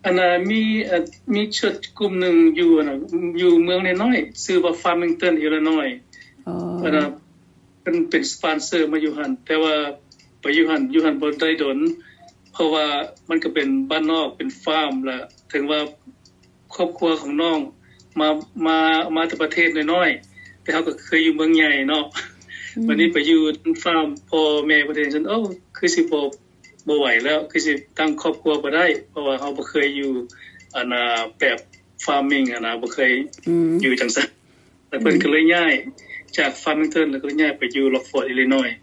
ອັນນ່າ ມີ ເອີ ມີຊົດກຸ່ມໜຶ່ງຢູ່ ອັນນ່າ ຢູ່ເມືອງນ້ອຍໆ ຊື່ວ່າ Farmington Illinois ອໍ ອັນນ່າ ເພິ່ນເປັນສະປອນເຊີມາຢູ່ຫັ້ນ ແຕ່ວ່າໄປຢູ່ຫັ້ນ ຢູ່ຫັ້ນບໍ່ໄດ້ດົນ ເພາະວ່າມັນກໍເປັນບ້ານນອກ ເປັນຟາມ ແລະ ເຖິງວ່າຄອບຄົວຂອງນ້ອງມາ ມາ ມາແຕ່ປະເທດນ້ອຍໆ ແຕ່ເຮົາກໍເຄີຍຢູ່ເມືອງໃຫຍ່ເນາະ ອືມ ບັດນີ້ໄປຢູ່ນຳຟາມ ພໍ່ແມ່ເພິ່ນເຫັນຊັ້ນ ໂອ້ ຄືຊິບໍ່ ບໍ່ໄຫວແລ້ວ ຄືຊິຕັ້ງຄອບຄົວບໍ່ໄດ້ ເພາະວ່າເຮົາບໍ່ເຄີຍຢູ່ ອັນນ່າ ແບບ farming ຫັ້ນນະ ບໍ່ເຄີຍ ອືມ ຢູ່ຈັ່ງຊັ້ນ ແລ້ວເພິ່ນ ອືມ ກໍເລີຍຍ້າຍຈາກ Farmington ແລ້ວກໍເລີຍຍ້າຍໄປຢູ່ Rockford Illinois